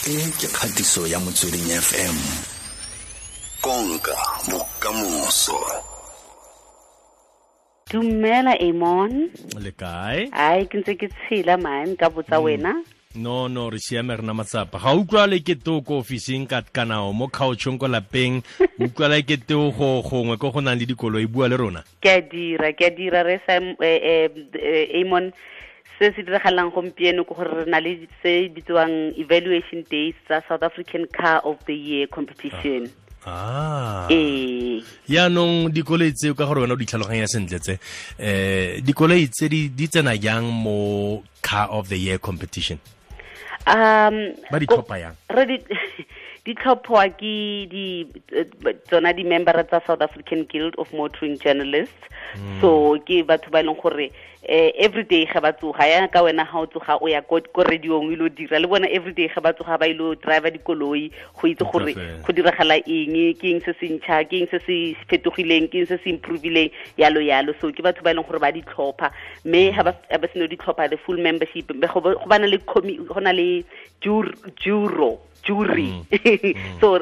E ke kgatiso ya Motsweding FM. Konka bokamoso. Dumela Amon. Le kae? Ai, ke ntse ke tshela man, ka botsa wena. No, re siame, re na matsapa. Ga utlwa le ke to ko ofising ka kana o mo couchong ko lapeng, utlwa le ke to go gongwe ko go nang le dikoloi, bua le rona. Ke a dira re sa Amon. Se se diragalang gompieno ke gore re na le se bitswang evaluation days tsa South African Car of the Year competition. Ee. Yaanong dikoloi tseo, ka gore wena o di tlhaloganya sentle tse, dikoloi tse di tsena jang mo Car of the Year competition? Ba di tlhopha yang? Re di tlhophwa ke di tsona di-member tsa South African Guild of Motoring Journalists. So ke batho ba e leng gore every day ga ba tsoga, ya ka wena ga o tsoga o ya ko radiong o ile dira le bona, every day ga ba tsoga ba ile driver dikoloi go itse gore go diragala eng, ke eng se se ntšha, ke eng se se fetogileng, ke eng se se improveileng, yalo yalo. So ke batho ba e leng gore ba di tlhopha, mme ga ba seno di tlhopha the full membership, go bana le go na le juro jury. So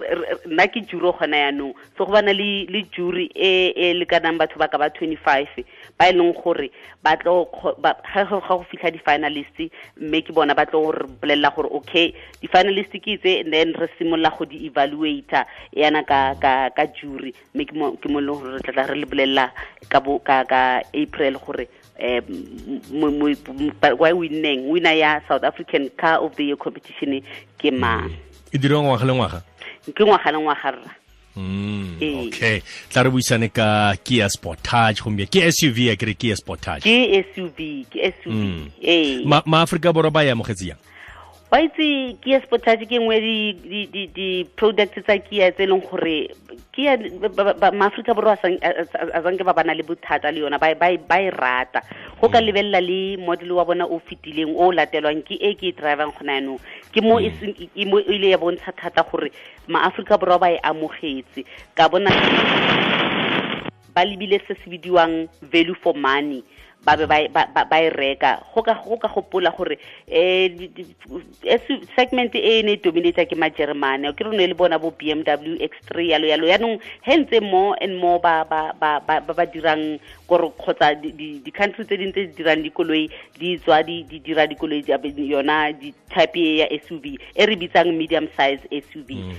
nna ke juro gona yaanong, so go bana le jury e lekanang batho ba ka ba 25 ba e leng gore ba tlo ga go fitlha di-finalist, mme ke bona ba tlo re bolelela gore okay, di-finalist ke tse, and then re simolola go di evaluator yana ka jury, mme ke mo e leng gore re tla re le bolelela ka April gore why winneng winner ya South African Car of the Year competition ke mang. E dirwa ngwaga le ngwaga? Ke ngwaga le ngwaga rra. Okay, tla re buisane ka Kia Sportage gompieno. Ke SUV ya kere Kia Sportage? Ke SUV, ke SUV. Ee. Ma Afrika Borwa ba e amogetse jang? Wa itse Kia Sportage ke nngwe di products tsa Kia tse e leng gore Kia ma Afrika Borwa a sanke ba bana le bothata le yona, ba e rata. Go ka lebelela le model wa bona o fetileng o latelwang ke e ke e drivang gona yanong, ke mo e ile ya bontsha thata gore ma Afrika Borwa ba e amogetse. Ka bona ba lebile se se bidiwang value for money, ba be ba e reka. Go ka gopola gore segment e ne dominate ke ma Germany, ke rone le bona bo BMW X3 yalo yalo. Yaanong he ntse more and more ba ba dirang gore kgotsa di-country tse ding tse di dirang dikoloi di tswa di dira dikoloi yona di type ya SUV e re bitsang medium size SUV.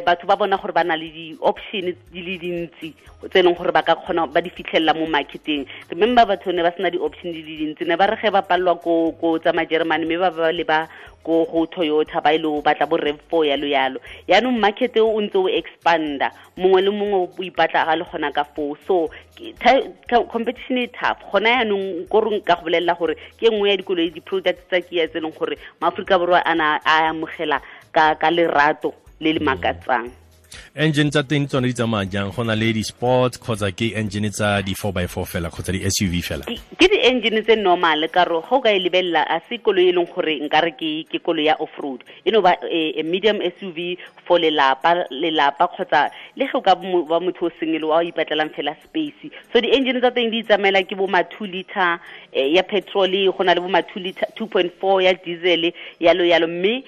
Batho ba bona gore ba na le di-option di le dintsi tse e leng gore ba ka kgona ba di fitlhelela mo marketeng. Remember batho ne ba sena di-option di le dintsi, ne ba re ge ba palelwa ko tsa ma-Germany, mme ba ba le ba ko go Toyota ba ile batla bo RAV4 yalo yalo. Yaanong market o ntse o expanda, mongwe le mongwe o ipatla ga le gona ka foo. So competition e tough gona yaanong. Ko re nka go bolelela gore ke nngwe ya dikoloi di-products tsa Kia tse e leng gore ma-Aforika Borwa a na a amogela ka lerato le le makatsang. Engine tsa teng tsone di tsamaya jang? Go na le di-sports kgotsa ke engine tsa di-4x4 fela kgotsa di-SUV fela? Ke di-engine tse normal, ka re ga o ka e lebelela a se koloi e leng gore nkare ke koloi ya off-road, e no ba a medium SUV for lelapa kgotsa le ge o ka ba motho o single wa o ipatlelang fela space. So di-engine tsa teng di tsamaela ke bo ma 2 liter ya petrol, go na le bo ma 2 liter 2.4 ya diesel yalo yalo. Mme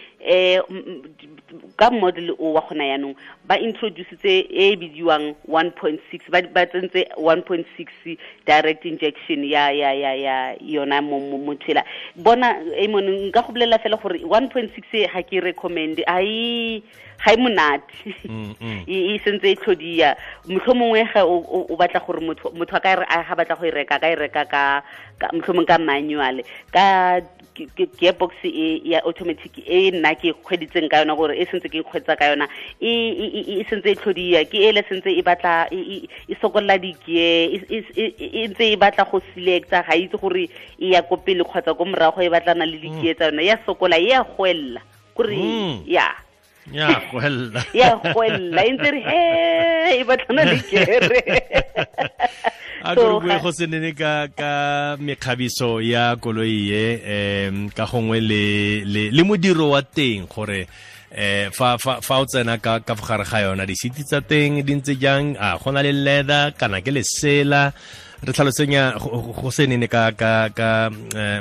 ka model o wa gona yaanong ba introducetse e bidiwang 1.6, ba tsentse 1.6 direct injection ya yona mo tsela. Bona Amon, nka go bolelela fela gore 1.6 ga ke recommend, ga e monate, e sentse e tlhodia. Mohlomongwe ga o batla gore motho a ka re ga batla go e reka, ka e reka ka mohlomong ka manual, ka gearbox e ya automatic e nna ke kgweditseng ka yona, gore e sentse ke kgwetsa ka yona, e sentse e tlhodia, ke ele sentse e batla e sokolla di-gear, e ntse e batla go selecta, ga itse gore e ya ko pele kgotsa ko morago, e batlana le di-gear tsa yona, ya sokola, e ya goella kore ya goella, ya goella e ntse re he e batlana le gear. A ko re bue go se nene ka mekgabiso ya koloi e, ka gongwe le modiro wa teng, gore fa o tsena ka gare ga yona, di-seat tsa teng di ntse jang? A go na le leather kana ke lesela? Re tlhalosenya go se nene ka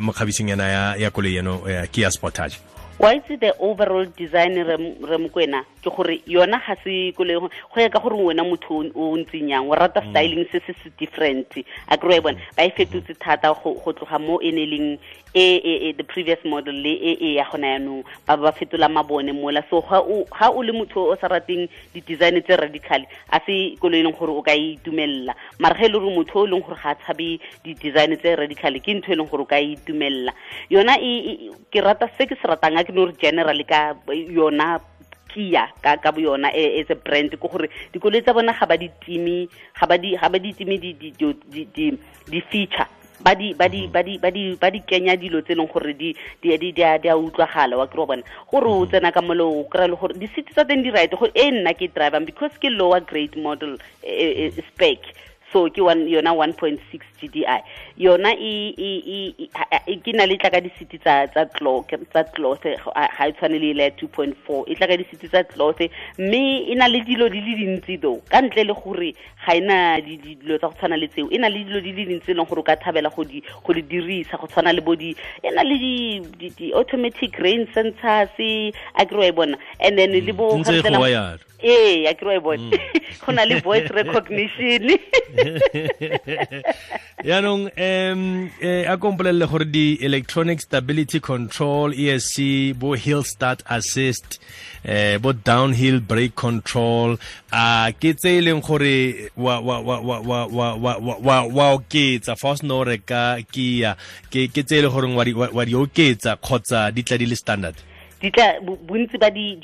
mokgabisong yana ya koloi eno ya Kia Sportage. Wa itse the overall design re Mokwena ke gore yona ga se koloi go ya ka gore wena motho o ntseng yang o rata styling se se different a kry bona ba e fetotse thata go tloga mo e ne leng e the previous model le e ya gona yanong ba fetola mabone mola. So ga o le motho o sa rateng di-design tse radical a se koloi e leng gore o ka e itumelela, mara ge e le gore motho o leng gore ga a tshabe di-design tse radical ke ntho e leng gore o ka e itumelela yona. Ke rata se ke se ratang a ke no re generally ka yona Kia ka bo yona as a brand ke gore dikoloi tsa bona ga ba di time di feature ba di kenya dilo tse leng gore di a utlwagala wa kry bona gore o tsena ka molo o kry le gore di-seat tsa teng di right go e nna ke drivang because ke lower grade model spec. So ke yona 1.6 GDI yona e ke na le tla ka di-seat tsa cloth ga e tshwane le ile 2.4 e tla ka di-seat tsa cloth mme e na le dilo di le dintsi though ka ntle le gore ga ena dilo tsa go tshwana le tseo e na le dilo di le dintsi e leng gore o ka thabela go di dirisa go tshwana le bo di e na le di automatic rain sensors a kry bona and then le bo a kry bona go na le voice recognition. Yaanong a kompolelele gore di electronic stability control ESC bo hill start assist bo downhill brake control a ke tse e leng gore wa oketsa fa o sena o reka Kia ke tse e leng gore wa di oketsa kgotsa di tla di le standard di tla bontsi ba di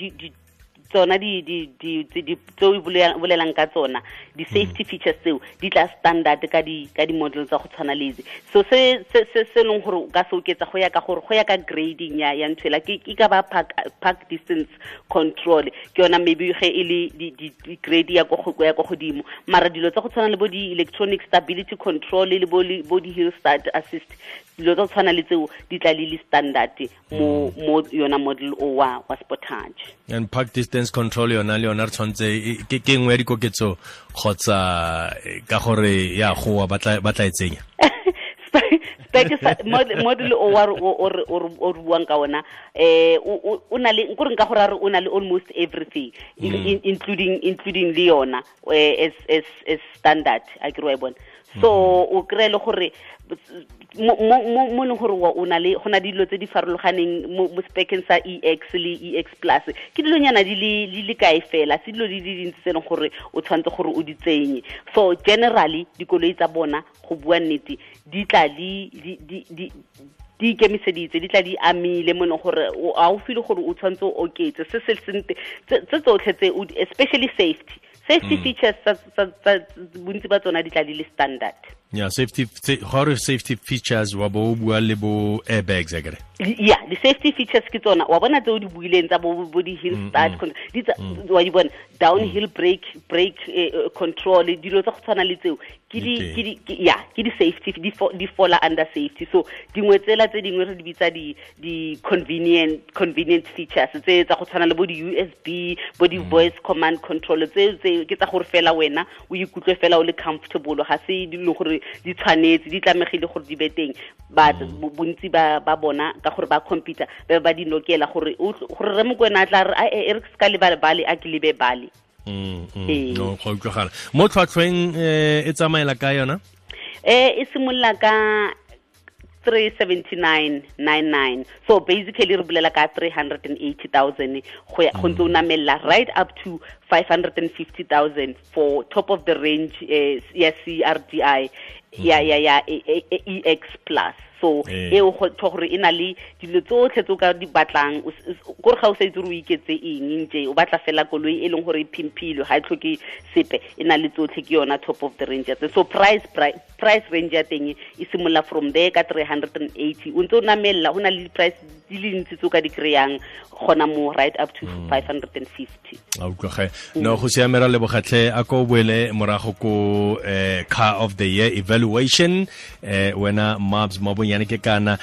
tsona di tse o bolelang ka tsona di safety features tseo di tla standard ka di model tsa go tshwana le tse. So se se leng gore o ka se oketsa go ya ka gore go ya ka grading ya ntho ela ke ka ba park distance control ke yona maybe ge e le di grade ya go ya go godimo, mara dilo tsa go tshwana le bo di electronic stability control le bo di hill start assist dilo tsa go tshwana le tseo di tla le standard mo yona model o wa Sportage. And park distance control yona le yona re tshwanetse ke nngwe ya dikoketso kgotsa ka gore ya goa ba tla e tsenya spec model o wa o buang ka ona o na le nkore nka gore o na le almost everything including le yona as standard a ke re bona. So o kry le gore mo leng gore o na le go na dilo tse di farologaneng mo speceng sa EX le EX plus ke dilonyana di le kae fela se dilo di le dintsi tse leng gore o tshwanetse gore o di tsenye. So generally dikoloi tsa bona go bua nnete di tla di ikemiseditse di tla di amile mo leng gore a o feel gore o tshwanetse o oketse se se sente tse tsotlhe tse especially safety features tsa bontsi ba tsona di tla di le standard. Yeah, safety safety features wa bo bua le bo airbags akere. Yeah, the safety features ke tsona wa bona tse o di buileng tsa bo di hill start di wa di bona downhill brake control dilo tsa go tshwana le tseo ke di safety di fall under safety. So dingwe tsela tse dingwe re di bitsa di convenient features tse tsa go tshwana le bo di USB bo di voice command control tse ke tsa gore fela wena o ikutlwe fela o le comfortable ga se dilo gore di tshwanetse di tlamegile gore di be teng but bontsi ba bona ka gore ba computer ba di nokela gore gore re Mokwena a tla re e re se ka lebale bale a ke lebe bale. No go utlwagala mo tlhwatlhweng e tsamaela ka yona e simolola ka 379.99 so basically re bolela ka 380,000 go ya go ntse o namella right up to 550,000 for top of the range ya CRDI ya EX plus. So e o go gore e na le dilo tsotlhe tse o ka di batlang gore ga o sa itse gore o iketse eng nje o batla fela koloi e leng gore e phimphile ga e tlhoke sepe e na le tsotlhe ke yona top of the range. So price range ya teng e simolola from there ka 380 o ntse o namella go na le price di le ntsi tse o ka di kry-ang gona mo right up to 550. A utlwage no go siamera le bogatlhe a ko boele morago ko car of the year evaluation wena Mabs Mabonyane ke kana.